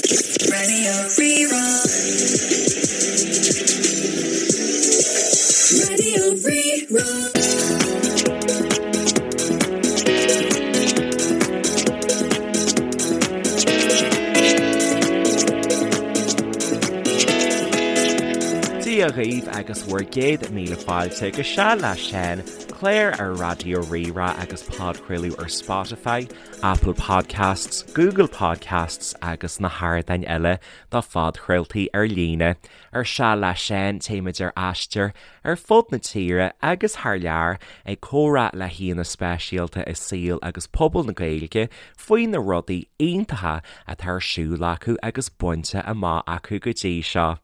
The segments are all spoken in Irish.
Radio Rí-Rá. Radio Rí-Rá. Dia dhaoibh agus bhur gcéad míle fáilte go Seal le Seán, clár ar Raidió Rí-Rá agus podchraoladh ar Spotify, Apple Podcasts, Google Podcasts agus na hardáin eile do phodchraoltaí ar líne. Ar Seal le Seán téimid ar aistear ar fud na tíre agus thar lear ag comhrá le haíonna speisialta i saol agus pobal na Gaeilge faoi na rudaí iontacha atá ar siúl acu agus bainte amach acu go dtí seo.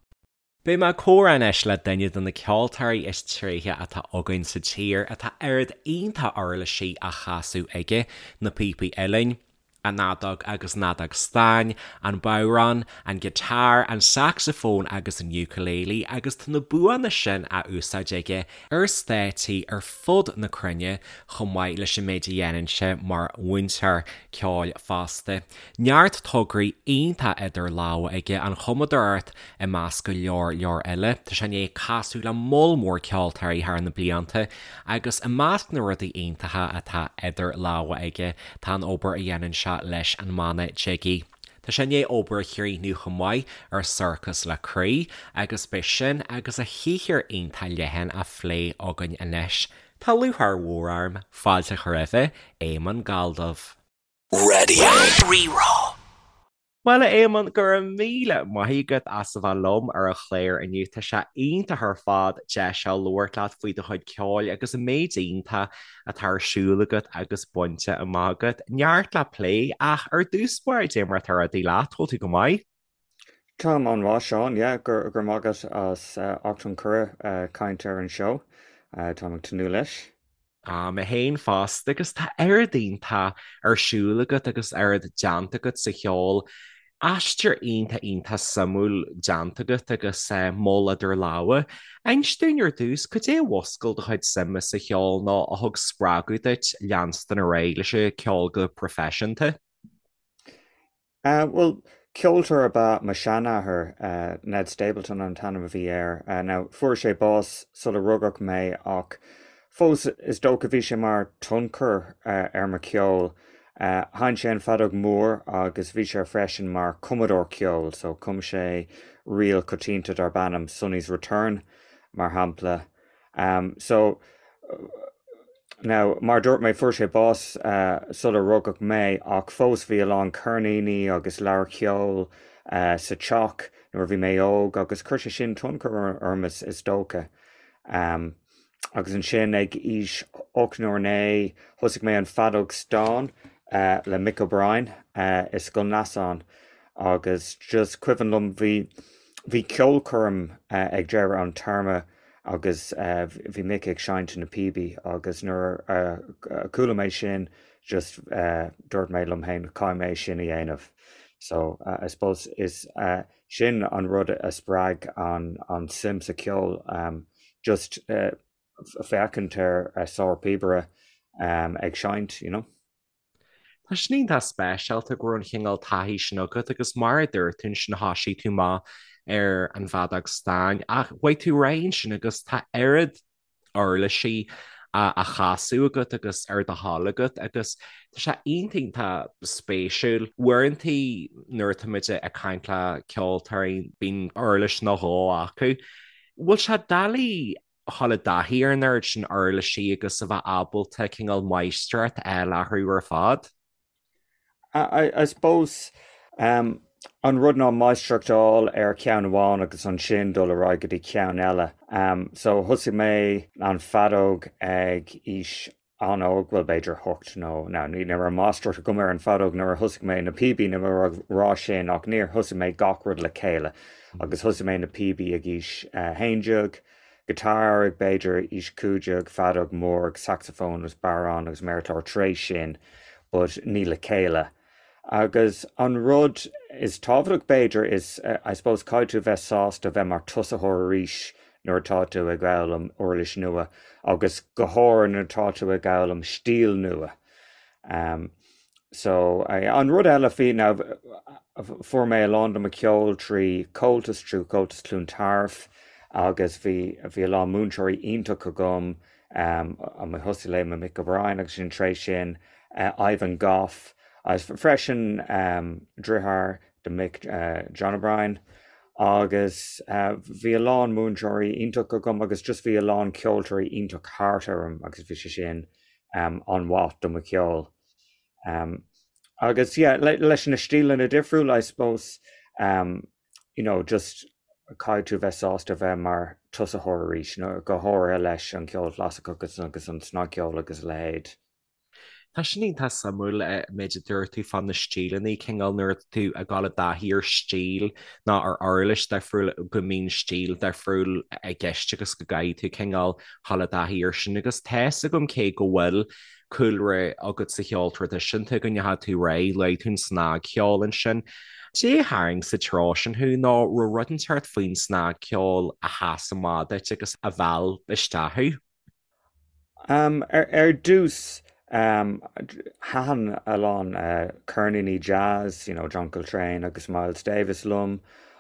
Beidh mé ag comhrá anois le duine de na ceoltóirí is tréithe atá againn sa tír atá oiread iontach uirlisí á chasadh aige, na píopaí uilleann, an fheadóg agus an fheadóg stáin, an bodhrán, an guitar, an saxophone agus an ukulele agus tá na buanna sin á úsáid aige ar stáitsí ar fud na cruinne chomh maith leis an méid a dhéanann sé mar mhúinteoir ceoil fosta. Neart tograí iontach idir lámha aige, an chumadóireacht i measc go leor leor eile. Tá sé i ndiaidh casadh le moll mór ceoltóirí thar na blianta agus i measc na rudaí iontacha atá idir lámha aige tá an obair a dhéanann sé leis an mbanna Jiggy. Tá sé i ndiaidh obair a chríochnú chomh maith ar Sorcas le Croí agus beidh sin agus a shaothar iontach leathan á phlé againn anois. Tá lúcháir mhór orm fáilte a chur roimhe, Éamonn Galldubh. Radio Rí-Rá. Bhuel, a Éamonn, go raibh míle maith agat as a bheith liom ar an chlár inniu. Tá sé iontach ar fad deis a labhairt leat faoi do chuid ceoil agus an méid iontach atá ar siúl agat agus bainte amach agat. Neart le plé, ach ar dtús báire, cad é mar atá rudaí leat, bhfuil tú go maith? Táim an-mhaith, Seán, yeah, go raibh maith agat as ucht an cuireadh caint ar an seó. Táim ag tnúth leis. Ah, mé féin fosta, agus tá oiread iontach ar siúl agat agus oiread déanta agat sa cheol. Aistear iontach iontach suimiúil déanta agat agus moll idir lámha. Inis dúinn ar dtús, cad é a mhúscail do chuid suime sa cheol nó a thug spreagadh duit leanstan ar aghaidh leis an cheol go proifisiúnta? Bhuel, ceoltóir ab ea mo sheanathair, Ned Stapleton an t-ainm a bhí air. Now, fuair sé bás sula rugadh mé ach fós is dócha bhí sé mar tionchar ar mo cheol. Sheinn sé an feadóg mór agus bhí sé freisin mar cumadóir ceoil, so chum sé ríl coitianta darb ainm Sonny's Return, mar shampla. So, now, mar a dúirt mé, fuair sé bás sular rugadh mé ach fós bhí a lán ceirníní agus leabhair cheoil sa teach nuair a bhí mé óg agus chuir sé sin tionchar orm is dócha. Agus ansin ag aois 8 nó 9 thosaigh mé an feadóg stáin le Mick O'Brien i Scoil Neasáin agus just cuimhin liom bhí bhí ceolchoirm ag deireadh an téarma agus bhí Mick ag seinnt na píobaí agus nuair a chuala mé sin just dúirt mé liom féin caithfidh mé sin a dhéanamh. So I suppose is sin an rud a spreag an an suim sa cheol just féachaint ar sár-phíobaire ag seinnt, you know. Tá sin iontach speisialta go raibh an chineál taithí sin agat agus mar a dúirt tú ansin thosaigh tú amach ar an bhfeadóg stáin ach chuaigh tú ar aghaidh ansin agus tá oiread uirlisí á chasadh agat agus ar do thoil agat agus tá sé iontach iontach spéisiúil. Uaireantaí nuair atáimid ag caint le ceoltóirí bíonn uirlis nó dhó acu. Bhfuil sé doiligh a dhul i dtaithí ar an oiread sin uirlisí agus a bheith ábalta cineál máistreacht a fháil orthu ar fad. I suppose an rud ná máistreacht a fháil ar cheann amháin agus ansin dul ar aghaidh go dtí ceann eile. So thosaigh mé an feadóg ag aois an-óg, bhuel b'fhéidir hocht nó, now ní raibh máistreacht agam ar an bhfeadóg nuair a thosaigh mé na píobaí níl mé ag rá sin ach níor thosaigh mé gach rud le chéile agus thosaigh mé na píobaí ag aois 11, guitar ag b'fhéidir aois 15, feadóg mór agus saxophone agus bodhrán agus méarchlár tar éis sin but ní le chéile. Agus an rud is tábhachtach b'fhéidir is I suppose caithfidh tú bheith sásta bheith mar tosaitheoir arís nuair atá tú ag foghlaim uirlis nua agus go háirithe nuair atá tú ag foghlaim stíl nua. So, an rud eile faoi ná fuair mé a lán de mo cheol trí Comhaltas, trí Comhaltas Chluain Tarbh agus bhí bhí a lán múinteoirí iontach agam, um, thosaigh le mo Mick O'Brien agus sin tar éis sin Ivan Goff agus freisin um, deartháir do Mick John O'Brien agus bhí a lán múinteoirí iontach agam agus just bhí a lán ceoltóirí iontach thart orm agus bhí sé sin an-mhaith do mo cheol. Agus yeah, leis na stíleanna difriúla I suppose, you know, just caithfidh tú bheith sásta bheith mar tosaitheoir arís, nó go háirithe leis an cheol chlasaiceach agus agus an snagcheol agus a leithéid. Tá sin iontach suimiúil an méid a dúirt tú fá na stíleanna, cineál nuair atá tú ag dul i dtaithí ar stíl nó ar uirlis difriúil go mbíonn stíl difriúil i gceist agus go gcaithfidh tú cineál dhul i dtaithí air sin agus tá's agam cé go bhfuil cúlra agat sa cheol traidisiúnta go ndeachaigh tú ar aghaidh, luaigh tú an snagcheol ansin. Cad é a tharraing sa treo sin thú nó raibh rud inteacht faoin snagcheol a sheas amach duit agus a mheall isteach thú? Ar dtús, thaitin a lán ceirníní jazz, you know, John Coltrane agus Miles Davis liom,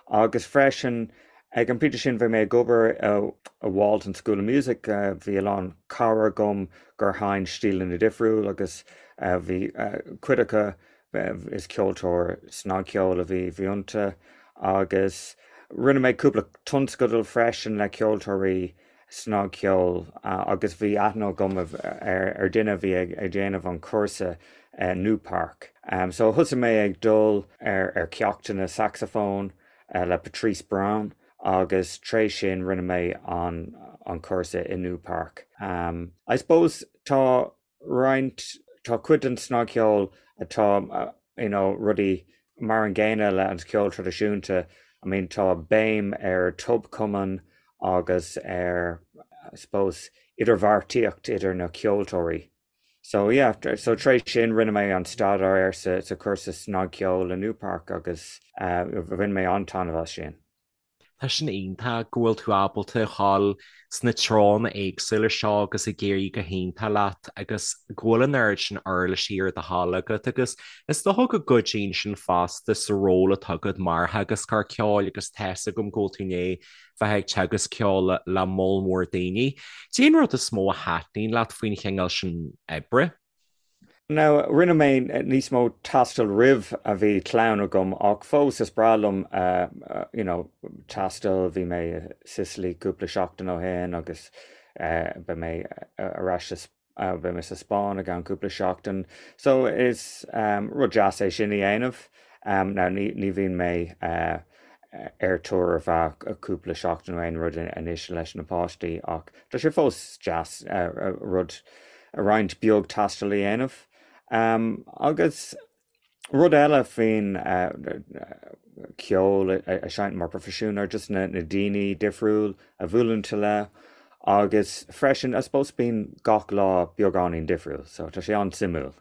agus freisin ag an bpointe sin bhí mé ag obair i Walton School of Music, bhí a lán cara agam gur sheinn stíleanna difriúil agus bhí cuid acu, is ceoltóir snagcheoil a bhí iontu agus rinne mé cúpla tionscadal freisin le ceoltóirí snagcheol agus bhí aithne agam ar duine a bhí ag déanamh an cúrsa Newpark. So thosaigh mé ag dul ar ceachtanna saxafóin le Patrice Brown agus tar éis sin rinne mé an cúrsa i Newpark. I suppose tá roinnt, tá cuid den snagcheol atá, you know, rudaí mar an gcéanna le an ceol traidisiúnta, I mean tá béim ar tobchumann agus ar, I suppose, idirbheartaíocht idir na ceoltóirí. So yeah, so tar éis sin rinne mé an staidéar sa, sa chúrsa snagcheoil i Newpark agus uh, bhain mé an-taitneamh as sin. Tá sin iontach go bhfuil tú ábalta a dhul sna treonna éagsúla seo agus ag éirí go hiontach leat agus go bhfuil an oiread sin uirlisí ar do thoil agat agus is dócha go gcuidíonn sin fosta sa ról atá agat mar theagascóir ceoil agus tá's agam go bhfuil tú i ndiaidh bheith ag teagasc ceoil le moll mór daoine. Cad é an rud is mó a thaitníonn leat faoin chineál sin oibre? Now, rinne mé níos mó taistil roimh a bhí clann agam ach fós is breá liom you know taisteal, bhí mé i Sicily cúpla seachtain ó shin agus beidh mé ar ais sa, beidh mé sa Spáinn i gceann cúpla seachtain. So is rud deas é sin a dhéanamh. Now ní ní bhíonn mé ar tour ar feadh cúpla seachtain nó aon rud anois leis na páistí ach tá sé fós deas rud roinnt beag taistil a dhéanamh. Agus rud eile faoin ceol a seinnt mar proifisiún ar just na daoine difriúil a bhuaileann tú le agus freisin I suppose bíonn gach lá beagáinín difriúil so tá sé an-suimiúil.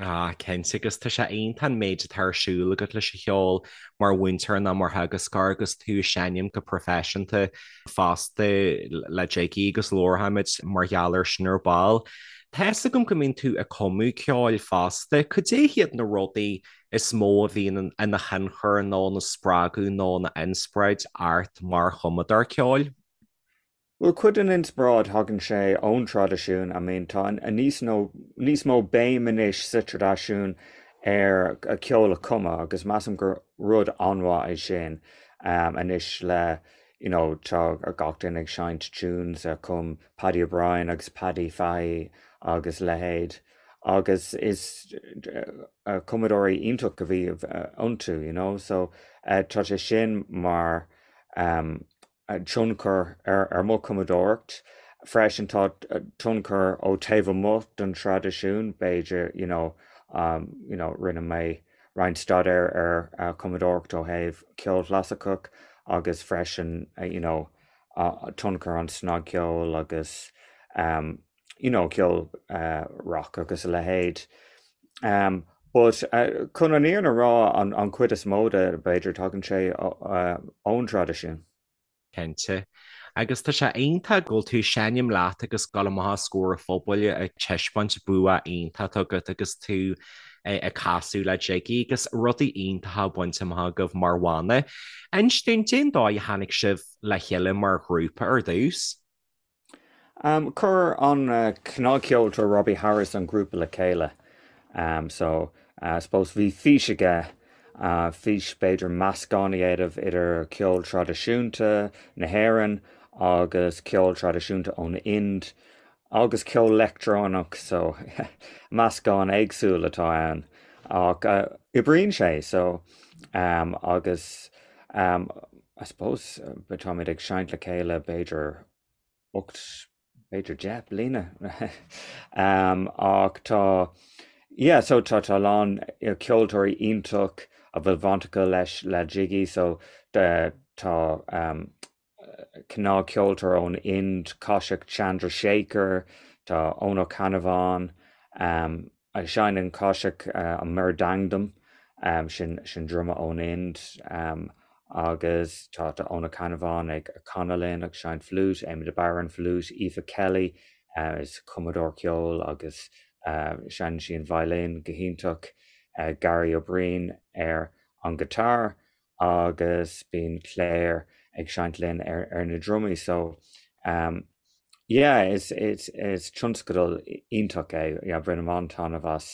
Ah, cinnte, agus tá sé iontach an méid atá ar siúl agat leis an cheol mar mhúinteoir nó mar theagascóir agus tú ag seinm go proifisiúnta fosta le Jiggy agus labharfaimid mar gheall air sin ar ball. Tá fhios agam go mbíonn tú ag cumadh ceoil fosta. Cad é hiad na rudaí is mó a bhíonn ina thionchar nó ina spreagadh nó ina inspioráid ort mar chumadóir ceoil? Bhuel, cuid den inspioráid, thagann sé ón traidisiún, I mean tá níos nó níos mó béim anois sa traidisiún ar ceol a chumadh agus measaim gur rud an-mhaith é sin anois le you know tá gach duine ag seinnt tunes a chum Paddy O'Brien agus Paddy Fahey agus leithéid agus is cumadóirí iontach a bhí iontu you know so tá sé sin mar tionchar ar mo chumadóireacht. Freisin tá tionchar ó taobh amuigh den traidisiún, b'fhéidir, you know, you know, rinne mé roinnt staidéir ar chumadóireacht ó thaobh ceol chlasaiceach agus freisin, you know, tionchar an snagcheol agus, you know, ceol rock agus a leithéid. But chun an fhírinne a rá, an chuid is mó de, b'fhéidir, tagann sé ón traidisiún. Cinnte. Agus tá sé iontach go bhfuil tú ag seinm leat agus dul amach os comhair an phobail ag taispeáint bua iontach agat agus tú. Ag casadh le Jiggy agus rudaí iontacha bainte amach agaibh mar bhanna. Inis dúinn, cén dóigh a tháinig sibh le chéile mar ghrúpa ar dtús? Chuir an cnagcheoltóir Robbie Harris an grúpa le chéile. So, I suppose bhí fís aige, fís b'fhéidir meascán a dhéanamh idir ceol traidisiúnta na hÉireann agus ceol traidisiúnta ón Ind agus ceol leictreonach so meascán éagsúil atá ann ach oibríonn sé so agus I suppose táimid ag seinnt le chéile b'fhéidir 8 b'fhéidir 10 bliana ach tá yeah so tá tá a lán ceoltóirí iontach a bhfuil baint acu leis le Jiggy so tá cnagcheoltóir ón Ind, Kaushik Chandrasekhar, tá Eoin Ó Ceannabháin, seinneann Kaushik an mridangam, sin sin druma ón Ind, agus tá Eoin Ó Ceannabháin ag canadh linn ag seinnt fliúit, Éamon de Barra an fliúit, Aoife Kelly is cumadóir ceoil agus seinneann sí an violin go hiontach, Gary Ó Briain ar an guitar agus bíonn Claire ag seinnt linn ar ar na drumaí so um yeah is is is tionscadal iontach é yeah bainim an-taitneamh as.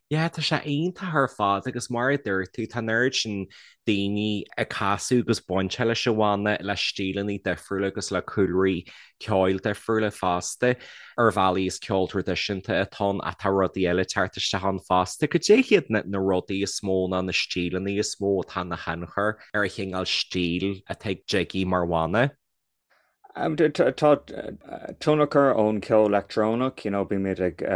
Yeah tá sé iontach ar fad agus mar a dúirt tú tá an oiread sin daoine ag casadh agus bainte leis an bhanna le stíleanna difriúla agus le cúlraí ceoil difriúla fosta. Ar bhealaí is ceol traidisiúnta atá ann ach tá rudaí eile ag teacht isteach ann fosta. Cad é hiad na rudaí is mó nó na stíleanna is mó atá ina thionchar ar an chineál stíl atá ag Jiggy mar bhanna? Tá tionchar ón ceol leictreonach, you know, bímid ag,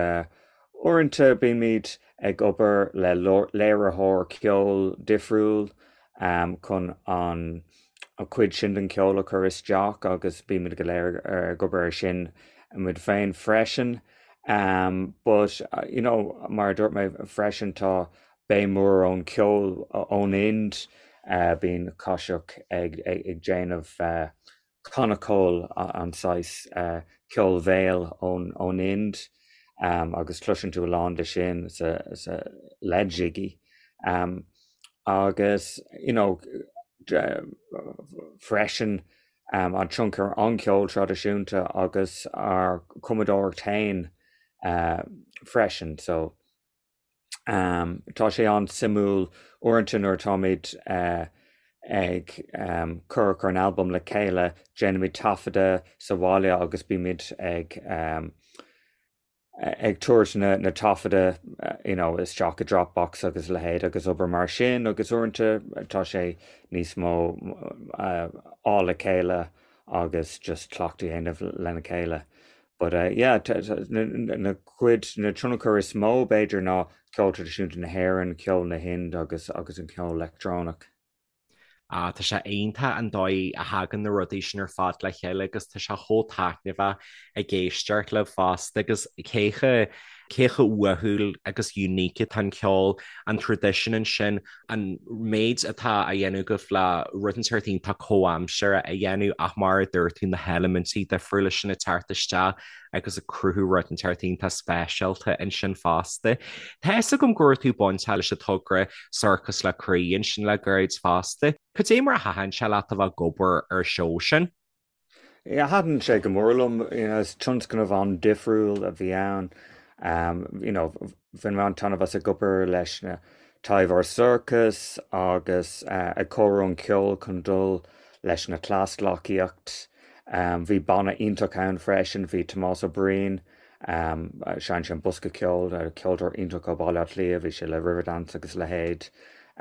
uaireanta bímid ag obair le léiritheoir ceoil difriúil chun an an chuid sin den cheol a chur isteach agus bímid go léir ag obair ar sin muid féin freisin. But you know mar a dúirt mé freisin tá béim mhór ón cheol ón Ind, bíonn Kaushik ag ag déanamh konnakol an saghas ceol bhéil ón ón Ind agus cloiseann tú a lán de sin sa sa le Jiggy. Agus you know freisin an tionchar an ceol traidisiúnta agus ár cumadóireacht féin freisin so tá sé an-suimiúil uaireanta nuair atáimid ag cur cur an albam le chéile déanaimid taifeadadh sa bhaile agus bímid ag ag tabhairt na na taifeadta you know isteach i Dropbox agus a leithéid agus obair mar sin agus uaireanta tá sé níos mó á le chéile agus just cleachtadh a dhéanamh lena chéile. But uh, yeah, na, na cuid na tionchar is mó b'fhéidir ná ceol traidisiúnta na hÉireann, ceol na hInd agus agus an ceol leictreonach. Ah, tá sé iontach an dóigh a thagann na rudaí sin ar fad le chéile agus tá sé chomh taitneamhach ag éisteacht libh fosta agus cé chomh cé chomh uathúil agus unique atá an ceol, an traidisiún ansin, an méid atá á dhéanamh agaibh le rud inteacht iontach comhaimseartha a dhéanamh ach mar a dúirt tú na heilimintí difriúla sin ag teacht isteach agus ag cruthú rud inteacht iontach speisialta ansin fosta. Tá fhios agam go raibh tú bainteach leis an togra Sorcas le Croí ansin le gairid fosta. Cad é mar a thaitin sé leat a bheith ag obair ar an seó sin? Yeah, thaitin sé go mór liom. You know, is tionscnamh an-difriúil a bhí ann. Um, you know, bhain mé an-taitneamh as ag obair leis na Taibheoir Sorcas agus uh, ag cóiriú an ceol chun dul leis na cleasghleacaíocht. Bhí banna iontach ann freisin, bhí Tomás Ó Briain, seinneann sé an bosca ceoil, ceoltóir iontach ó Bhaile Átha Cliath, bhí sé le Riverdance agus a leithéid.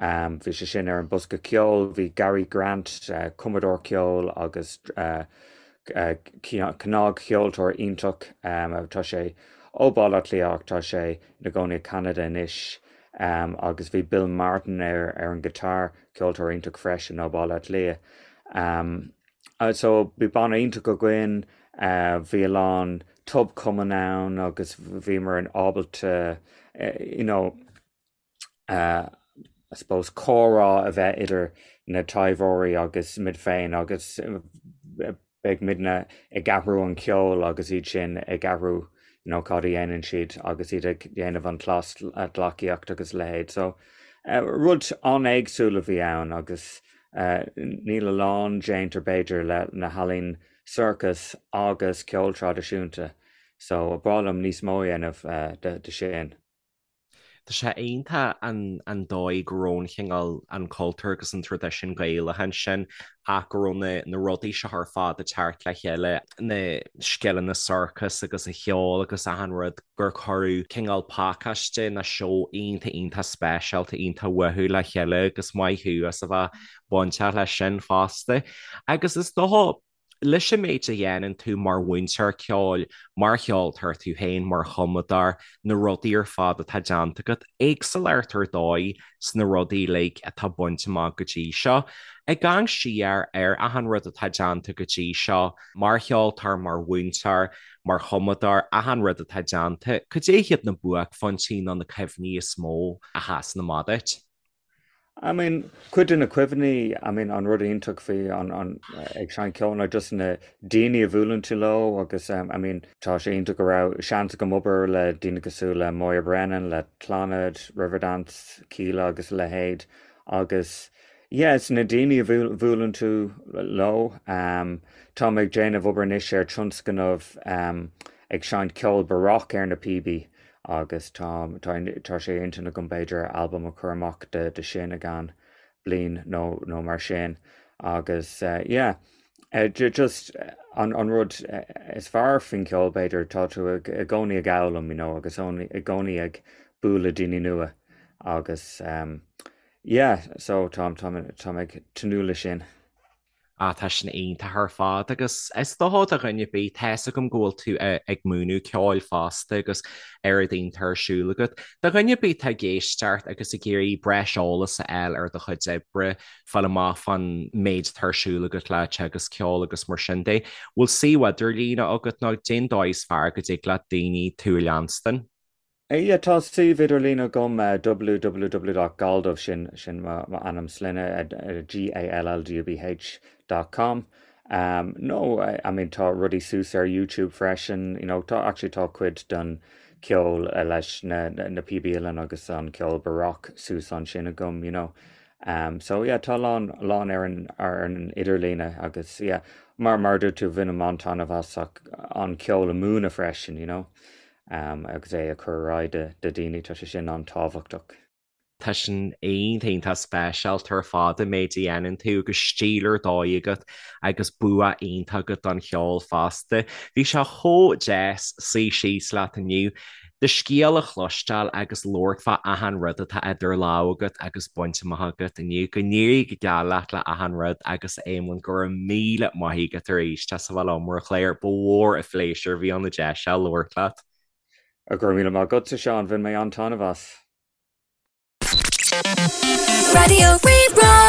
Bhí sé sin ar an bosca ceoil, bhí Gary Grant, cumadóir ceoil agus cnagcheoltóir iontach, tá sé ó Bhaile Átha Cliath ach tá sé ina gcónaí i Ceanada anois, agus bhí Bill Martin ar an guitar, ceoltóir iontach freisin ó Bhaile Átha Cliath. So bhí banna iontach againn, bhí a lán tobchumann ann agus bhíomar ábalta you know I suppose comhrá a bheith idir na taibheoirí agus muid féin agus beidh muidne ag athrú an ceol agus iad sin ag athrú. you know, cad a dhéanann siad agus iad ag déanamh an cleasghleacaíocht agus a leithéid. So, rud an-éagsúil a bhí ann agus níl a lán déanta b'fhéidir le na healaín sorcas agus ceol traidisiúnta. So, ba bhreá liom níos mó a dhéanamh de sin. Tá sé iontach an dóigh go raibh an chineál, an cultúr agus an traidisiún Gaelach ansin ach go raibh na na rudaí seo ar fad ag teacht le chéile, na scileanna sorcais agus an cheol agus achan rud, gur cuireadh cineál pacáiste nó seó iontach iontach speisialta, iontach uathúil le chéile agus maith thú as a bheith bainteach leis sin fosta. Agus is dócha Leis an méid a dhéanann tú mar mhúinteoir ceoil, mar cheoltóir tú féin, mar chumadóir, na rudaí ar fad atá déanta agat, éagsúlacht ar dóigh sna rudaí uilig atá bainte amach go dtí seo. Ag amharc siar ar achan rud atá déanta go dtí seo, mar cheoltóir, mar mhúinteoir, mar chumadóir, achan rud atá déanta, cad é hiad na buaicphointí nó na cuimhní is mó a sheasann amach duit? I mean, cuid de na cuimhní, I mean, an rud iontach faoi an, an, ag seinnt ceoil ná just na daoine a bhuaileann tú leo agus um, I mean, tá sé iontach go raibh seans agam obair le daoine cosúil le Moya Brennan, le Clannad, Riverdance, Kíla agus a leithéid agus yeah, it's na daoine a bhuaileann tú leo. Um, tá mé ag déanamh obair anois ar tionscnamh um, ag seinnt ceol baroque ar na píobaí agus tá tá sé ar intinn agam b'fhéidir albam a chur amach de de sin i gceann bliain nó nó mar sin agus yeah just an an rud is fearr faoin cheol b'fhéidir tá tú ag i gcónaí ag foghlaim you know agus i gcónaí ag bualadh daoine nua agus yeah so tá tá tá mé ag tnúth leis sin. Ah, tá sin iontach ar fad agus is dócha do dhuine ar bith, tá 'fhios agam go bhfuil tú ag múineadh ceoil fosta agus oiread iontach ar siúl agat. Do dhuine ar bith atá ag éisteacht agus ag iarraidh breis eolais a fháil ar do chuid oibre, fáil amach fán méid atá ar siúl agat le teagasc ceoil agus mar sin de, bhfuil suíomh idirlíne agat nó cén dóigh is fearr go dtig le daoine tú a leanstan? Yeah, tá suíomh idirlín agam, www.galldubh, sin sin m'ainm sloinne, G-A-L-L-D-U-B-H dot com. Nó, I mean, tá rudaí suas ar YouTube freisin, you know, tá, actually tá cuid den ceol leis na na píobaí uilleann agus an ceol baroque suas ansin agam, you know. So yeah, tá a lán, a lán ar an ar an idirlíne agus yeah, mar mar a dúirt tú, bhainim an-taitneamh as an ceol a múineadh freisin, you know. agus é a chur ar aghaidh do dhaoine, tá sé sin an-tábhachtach. Tá sin iontach iontach speisialta ar fad an méid a dhéanann tú agus stíl ar dóigh agat agus bua iontach agat don cheol fosta. Bhí sé chomh deas suí síos leat inniu, do scéal a chloisteáil agus labhairt fá achan rud atá idir lámha agat agus bainte amach agat inniu. Go n-éirí go geal leat le achan rud agus a Éamoinn go raibh míle maith agat arís as a bheith liom ar an chlár. Ba mhór an phléisiúr a bhí ann an deis seo labhairt leat. Go raibh míle maith agatsa, Seán. Bhain mé an-taitneamh as. Raidió Rí-Rá.